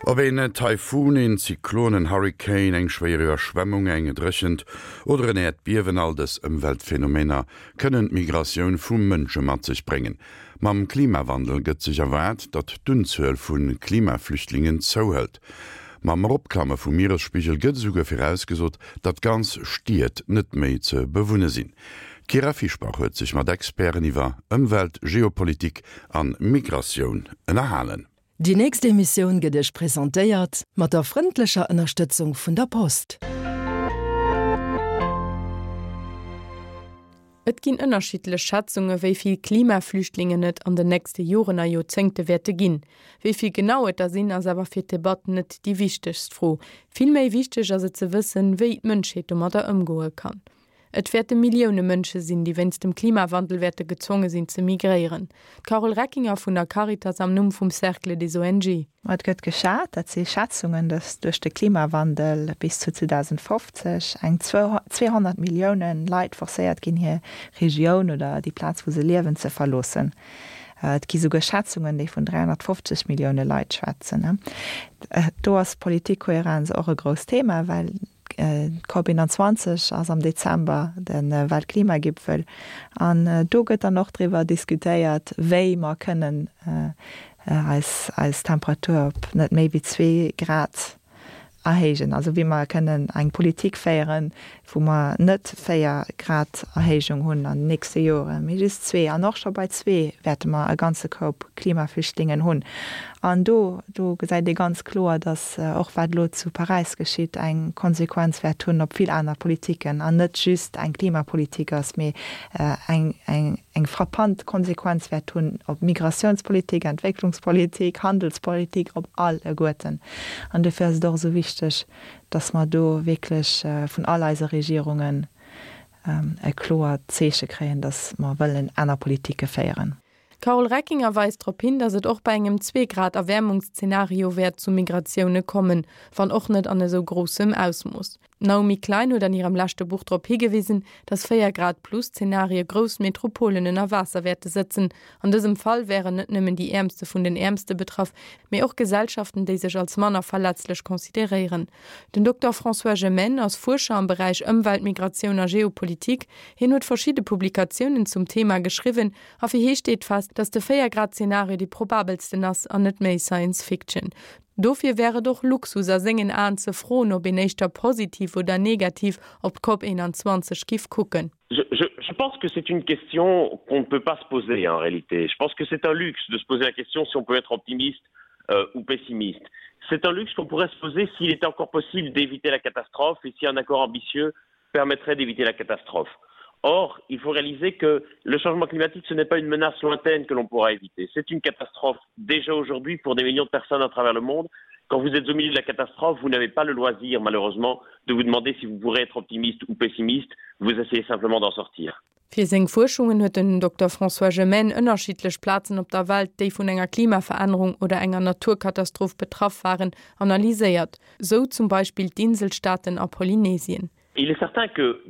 Ob een Taifun, een Zyklon, en Hurrikan, eng schwéier Iwwerschwemmung, eng Dréchent oder en Äerdbiewen, all dës Ëmweltphenomener kënnen d'Migratioun vu Mënsche mat sech bréngen. Mam Klimawandel gëtt sech erwaart, datt d'Unzuel vu Klimaflüchtlingen zouhëlt. Mam Eropklamme vum Mieresspigel gëtt esouguer virausgesot, datt ganz Stied net méi ze bewunne sinn. D'Kyra Fischbach huet sech mat Experten iwwer Ëmwelt, Geopolitik an Migratioun ënnerhalen. Déi nächst Emissioun gëtt Iech presentéiert mat der frëndlecher Ënnerstëtzung vun der Post. Et ginn ënnerschiddlech Schätzunge wéi vill Klimaflüchtlingen et an den nächste Joren a Joerzéngte wäerte ginn. Wéi vill genau et der sinn, ass awer fir d'Debatt net déi wichtegst Fro. Vill méi wichteg ass et ze wëssen, wéi d'Mënschheet domadder ëmgoe kann. Et wäerte Millioune Mënsche sinn, déi wéinst dem Klimawandel wäerte gezwonge sinn ze migréieren. D'Carole Reckinger vun der Caritas am Numm vum Cercle des ONG. Et gëtt geschat, dat si Schätzungen, datt duerch de Klimawandel bis zu 2050 eng 200 Millioune Leit forcéiert ginn, hir Regioun oder déi Plaz, wou se liewen, ze verloossen. Et gi souguer Schätzungen, déi vun 350 Millioune Leit schwätzen. Do ass Politikkohärenz och e grousst Thema, well D'COP 21 ass am Dezember, de Weltklimagipfel, an do gëtt dann och driwwer diskutéiert, wéi mer kënnen eis eis Temperatur op net méi wéi zwee Grad erhéijen, also wéi mer kënnen eng Politik féieren, wou mer net 4 Grad Erhéijung hunn an den nächste Joren, mee just zwee. An och scho bei zwee wäerte mer e ganze Koup Klimaflüchtlingen hunn. An do, do gesäit ee ganz kloer, datt och wat elo zu Paräis geschitt, eng Konsequenz wäert hunn op vill aner Politiken an net just eng Klimapolitik ass, mee eng, eng, eng frappant Konsequenz wäert hunn op Migratiounspolitik, Entwécklungspolitik, Handelspolitik, op alleguerten. An dofir ass et och esou wichteg, dass mer do wierklech vun all eise Regierungen e kloert Zeeche kréien, dass mer wëllen aner Politike féieren. D'Carole Reckinger weist drop hin, dass et och bei engem Zwee-Grad-Erwäermungsszenario wäert zu Migratioune kommen, wann och net an esou groussem Ausmooss. D'Naomi Klein huet an hirem leschte Buch drop higewisen, dass 4 Grad plus Zenarie grouss Metropolen ënner Waasser wäerte sëtzen. An dësem Fall wären net nëmmen déi Äermste vun den Äermste betraff, mee och Gesellschaften, déi sech als manner verletzlech consideréieren. Den Dokter François Gemenne ass Fuerscher am Beräich Ëmwelt, Migratioun a Geopolitik. Hien huet verschidde Publikatiounen zum Thema geschriwwen a fir hie steet fest, dass de 4 Grad Zenario dee probabelsten ass an net méi Science Fiction. Dofir wär et och Luxus a sengen Aen ze froen, ob een éischter positiv oder negativ op d'COP 21 giff kucken. Je, je, je pense que c'est une question qu'on ne peut pas se poser en réalité. Je pense que c'est un luxe de se poser la question si on peut être optimiste euh, ou pessimiste. C'est un luxe qu'on pourrait se poser s'il était encore possible d'éviter la catastrophe et si un accord ambitieux permettrait d'éviter la catastrophe. Or, il faut réaliser que le changement climatique, ce n'est pas une menace lointaine que l'on pourra éviter. C'est une catastrophe déjà aujourd'hui pour des millions de personnes à travers le monde. Quand vous êtes au milieu de la catastrophe, vous n'avez pas le loisir, malheureusement, de vous demander si vous pourrez être optimiste ou pessimiste. Vous essayez simplement d'en sortir. Fir seng Fuerschungen huet den Dokter François Gemenne ënnerschiddlech Plazen op der Welt, déi vun enger Klimaverännerung oder enger Naturkatastroph betraff waren, analyséiert. Sou zum Beispill d'Inselstaaten a Polynesien. Il est certain que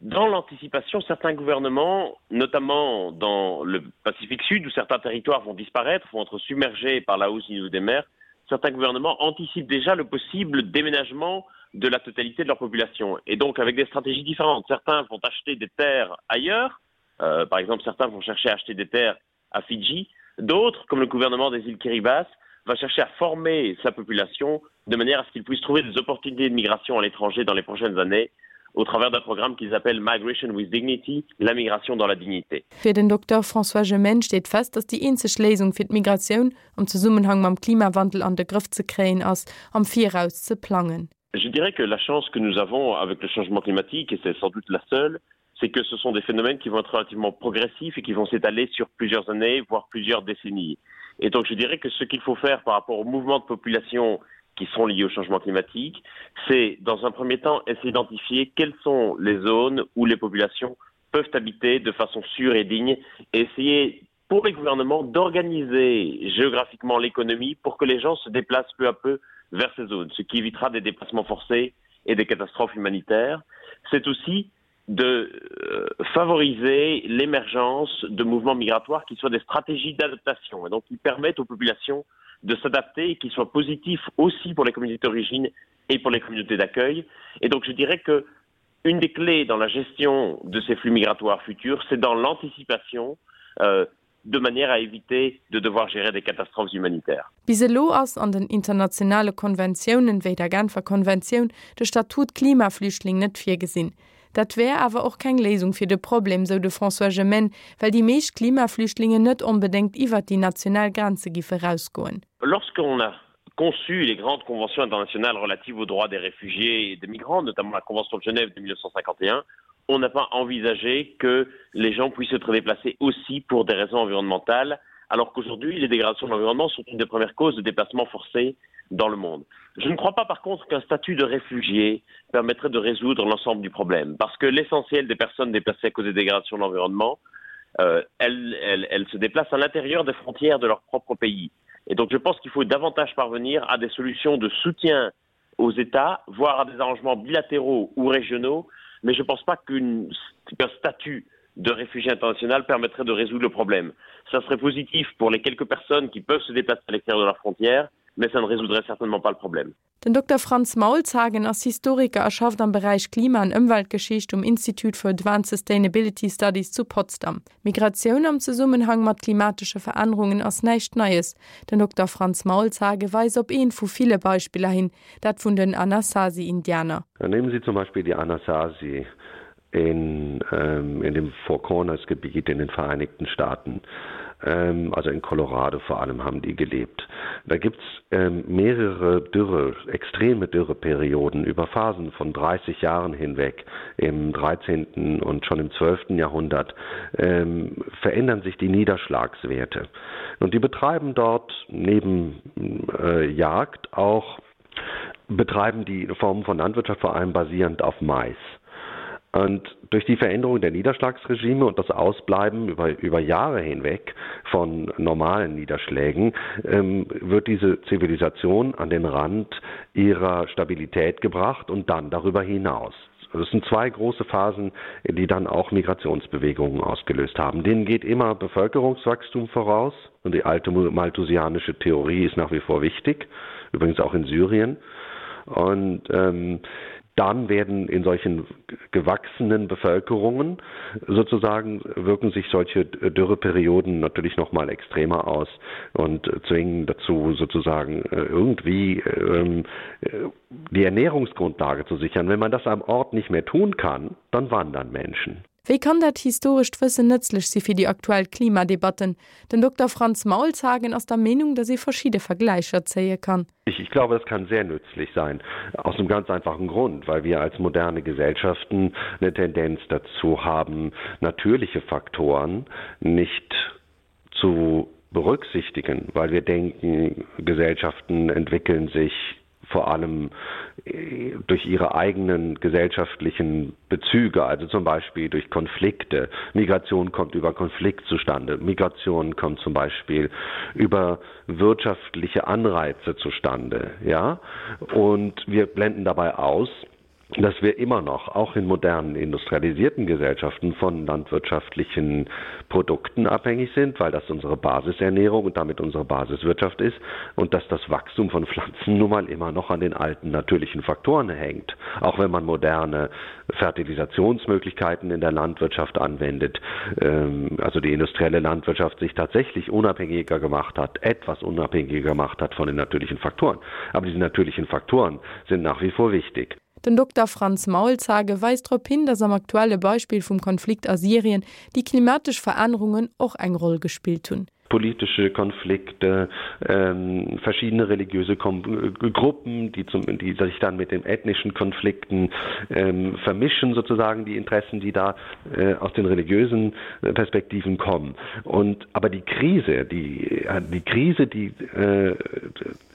dans l'anticipation, certains gouvernements, notamment dans le Pacifique Sud où certains territoires vont disparaître, vont être submergés par la hausse du niveau des mers, certains gouvernements anticipent déjà le possible déménagement de la totalité de leur population et donc avec des stratégies différentes. Certains vont acheter des terres ailleurs, euh, par exemple certains vont chercher à acheter des terres à Fidji, d'autres, comme le gouvernement des îles Kiribati, va chercher à former sa population de manière à ce qu'il puisse trouver des opportunités de migration à l'étranger dans les prochaines années au travers d'un programme qu'ils appellent Migration with Dignity, la migration dans la dignité. Fir den Dokter François Gemenne steet fest, datt déi eenzeg Léisung fir d'Migratioun am Zesummenhang mam Klimawandel an de Grëff ze kréien ass, am Viraus ze plangen. Je dirais que la chance que nous avons avec le changement climatique, et c'est sans doute la seule, c'est que ce sont des phénomènes qui vont être relativement progressifs et qui vont s'étaler sur plusieurs années, voire plusieurs décennies. Et donc je dirais que ce qu'il faut faire par rapport aux mouvements de population qui sont liés au changement climatique, c'est dans un premier temps essayer d'identifier quelles sont les zones où les populations peuvent habiter de façon sûre et digne et essayer pour les gouvernements d'organiser géographiquement l'économie pour que les gens se déplacent peu à peu vers ces zones, ce qui évitera des déplacements forcés et des catastrophes humanitaires. C'est aussi de euh, favoriser l'émergence de mouvements migratoires qui soient des stratégies d'adaptation et donc qui permettent aux populations de. de s'adapter et qui soit positif aussi pour les communautés d'origine et pour les communautés d'accueil. Et donc je dirais que une des clés dans la gestion de ces flux migratoires futurs, c'est dans l'anticipation euh, de manière à éviter de devoir gérer des catastrophes humanitaires. Bis elo ass an den internationale Konventiounen, wéi der Genfer Konventioun, de Statut Klimaflüchtling net virgesinn. Dat wär awer och keng Léisung fir de Problem, sou de François Gemenne, well déi meescht Klimaflüchtlingen net onbedéngt iwwert déi national Grenze giffe rausgoen. Lorsqu'on a conçu les grandes conventions internationales relatives aux droits des réfugiés et des migrants, notamment la Convention de Genève de 1951, on n'a pas envisagé que les gens puissent être déplacés aussi pour des raisons environnementales, alors qu'aujourd'hui les dégradations de l'environnement sont une des premières causes de déplacements forcés dans le monde. Je ne crois pas par contre qu'un statut de réfugié permettrait de résoudre l'ensemble du problème, parce que l'essentiel des personnes déplacées à cause des dégradations de l'environnement, euh, elles, elles, elles se déplacent à l'intérieur des frontières de leur propre pays. Et donc je pense qu'il faut davantage parvenir à des solutions de soutien aux États, voire à des arrangements bilatéraux ou régionaux, mais je ne pense pas qu'un qu statut de réfugié international permettrait de résoudre le problème. Ça serait positif pour les quelques personnes qui peuvent se déplacer à l'extérieur de leurs frontières, mais ça ne résoudrait certainement pas le problème. Den Dokter Franz Maulshagen ass Historiker a schafft am Beräich Klima an Ëmweltgeschicht um Institute for Advanced Sustainability Studies zu Potsdam. Migratioun am Zesummenhang mat klimatesche Verännerungen ass näischt Neies. Den Dokter Franz Maulshagen weist op eent vu ville Beispiller hin, dat vun den Anasazi-Indianer. Nehmen Sie zum Beispiel die Anasazi in, ähm, in dem Four Corners Gebiet in den Vereinigten Staaten. Ähm, also in Colorado vor allem haben die gelebt. Da gibt es ähm, mehrere Dürre, extreme Dürreperioden über Phasen von 30 Jahren hinweg im 13. und schon im 12. Jahrhundert ähm, verändern sich die Niederschlagswerte. Und die betreiben dort neben äh, Jagd auch betreiben die Formen von Landwirtschaft vor allem basierend auf Mais. Und durch die Veränderung der Niederschlagsregime und das Ausbleiben über, über Jahre hinweg von normalen Niederschlägen ähm, wird diese Zivilisation an den Rand ihrer Stabilität gebracht und dann darüber hinaus. Das sind zwei große Phasen, die dann auch Migrationsbewegungen ausgelöst haben. Denen geht immer Bevölkerungswachstum voraus und die alte malthusianische Theorie ist nach wie vor wichtig, übrigens auch in Syrien. Und ähm, dann werden in solchen gewachsenen Bevölkerungen sozusagen wirken sich solche Dürreperioden natürlich noch mal extremer aus und zwingen dazu sozusagen äh, irgendwie ähm, äh, die Ernährungsgrundlage zu sichern. Wenn man das am Ort nicht mehr tun kann, dann wandern Menschen. Wéi kann dat historescht Wëssen nëtzlech si fir déi aktuell Klimadebatten? Den Dokter Franz Maulshagen ass der Meenung, datt ee verschidde Vergläicher zéie kann. Ich, ich glaube, das kann sehr nützlich sein. Aus einem ganz einfachen Grund, weil wir als moderne Gesellschaften eine Tendenz dazu haben, natürliche Faktoren nicht zu berücksichtigen, weil wir denken, Gesellschaften entwickeln sich vor allem äh, durch ihre eigenen gesellschaftlichen Bezüge, also zum Beispiel durch Konflikte. Migration kommt über Konflikt zustande. Migration kommt zum Beispiel über wirtschaftliche Anreize zustande. Ja? Und wir blenden dabei aus, dass wir immer noch auch in modernen industrialisierten Gesellschaften von landwirtschaftlichen Produkten abhängig sind, weil das unsere Basisernährung und damit unsere Basiswirtschaft ist und dass das Wachstum von Pflanzen nun mal immer noch an den alten natürlichen Faktoren hängt. Auch wenn man moderne Fertilisationsmöglichkeiten in der Landwirtschaft anwendet, ähm, also die industrielle Landwirtschaft sich tatsächlich unabhängiger gemacht hat, etwas unabhängiger gemacht hat von den natürlichen Faktoren. Aber diese natürlichen Faktoren sind nach wie vor wichtig. Den Dokter Franz Maulshagen weist drop hin, datt am aktuelle Beispill vum Konflikt a Syrien déi klimatesch Verännerungen och eng Roll gespillt hunn. Politische Konflikte, ähm, verschiedene religiöse Kom Gruppen, die, zum, die sich dann mit den ethnischen Konflikten ähm, vermischen, sozusagen die Interessen, die da äh, aus den religiösen äh, Perspektiven kommen. Und, aber die Krise, die, äh, die Krise, die äh,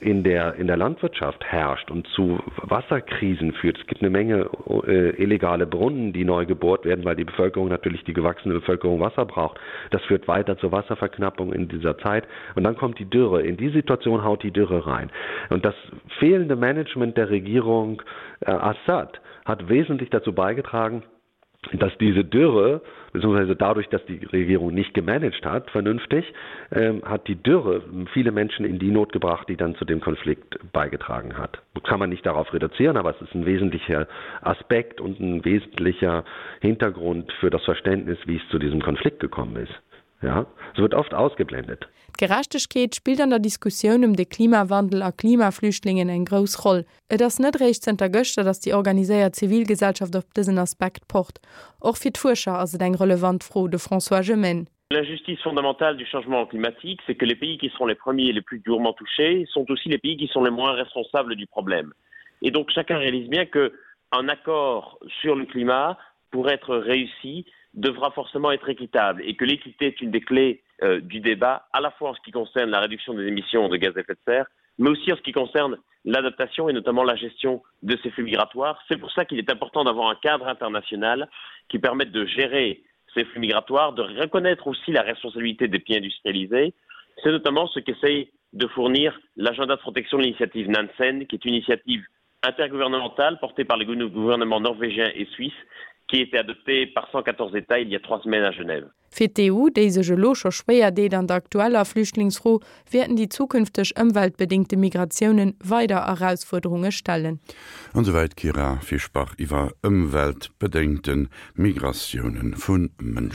in der, in der Landwirtschaft herrscht und zu Wasserkrisen führt. Es gibt eine Menge äh, illegale Brunnen, die neu gebohrt werden, weil die Bevölkerung natürlich die gewachsene Bevölkerung Wasser braucht. Das führt weiter zur Wasserverknappung in dieser Zeit. Und dann kommt die Dürre. In die Situation haut die Dürre rein. Und das fehlende Management der Regierung äh, Assad hat wesentlich dazu beigetragen, Dass diese Dürre beziehungsweise dadurch, dass die Regierung nicht gemanagt hat vernünftig, ähm, hat die Dürre viele Menschen in die Not gebracht, die dann zu dem Konflikt beigetragen hat. Kann man nicht darauf reduzieren, aber es ist ein wesentlicher Aspekt und ein wesentlicher Hintergrund für das Verständnis, wie es zu diesem Konflikt gekommen ist. Ja, es wird oft ausgeblendet. D'Gerechtegkeet spillt an der Diskussioun ëm de Klimawandel a Klimaflüchtlingen eng grouss Roll. Et ass net eréischt zënter gëschter, datt déi organiséiert Zivilgesellschaft op dësen Aspekt pocht. Och fir d'Fuerscher ass et eng relevant Fro, de François Gemenne. L'injustice fondamentale du changement climatique, c'est que les pays qui seront les premiers et les plus durement touchés sont aussi les pays qui sont les moins responsables du problème. Et donc chacun réalise bien que un accord sur le climat pour être réussi devra forcément être équitable et que l'équité est une des clés euh, du débat à la fois en ce qui concerne la réduction des émissions de gaz à effet de serre mais aussi en ce qui concerne l'adaptation et notamment la gestion de ces flux migratoires. C'est pour ça qu'il est important d'avoir un cadre international qui permette de gérer ces flux migratoires, de reconnaître aussi la responsabilité des pays industrialisés. C'est notamment ce qu'essaye de fournir l'agenda de protection de l'initiative Nansen, qui est une initiative intergouvernementale portée par les gouvernements norvégiens et suisses qui a été adoptée par 114 États il y a trois semaines à Genève. Fir d'EU, déi sech elo scho schwéier deet an der aktueller Flüchtlingsfro, wäerten déi zukünfteg ëmweltbedéngte Migratiounen weider Erausfuerderunge stellen. An esouwäit d'Kyra Fischbach iwwer ëmweltbedéngte Migratioune vu Mënschen.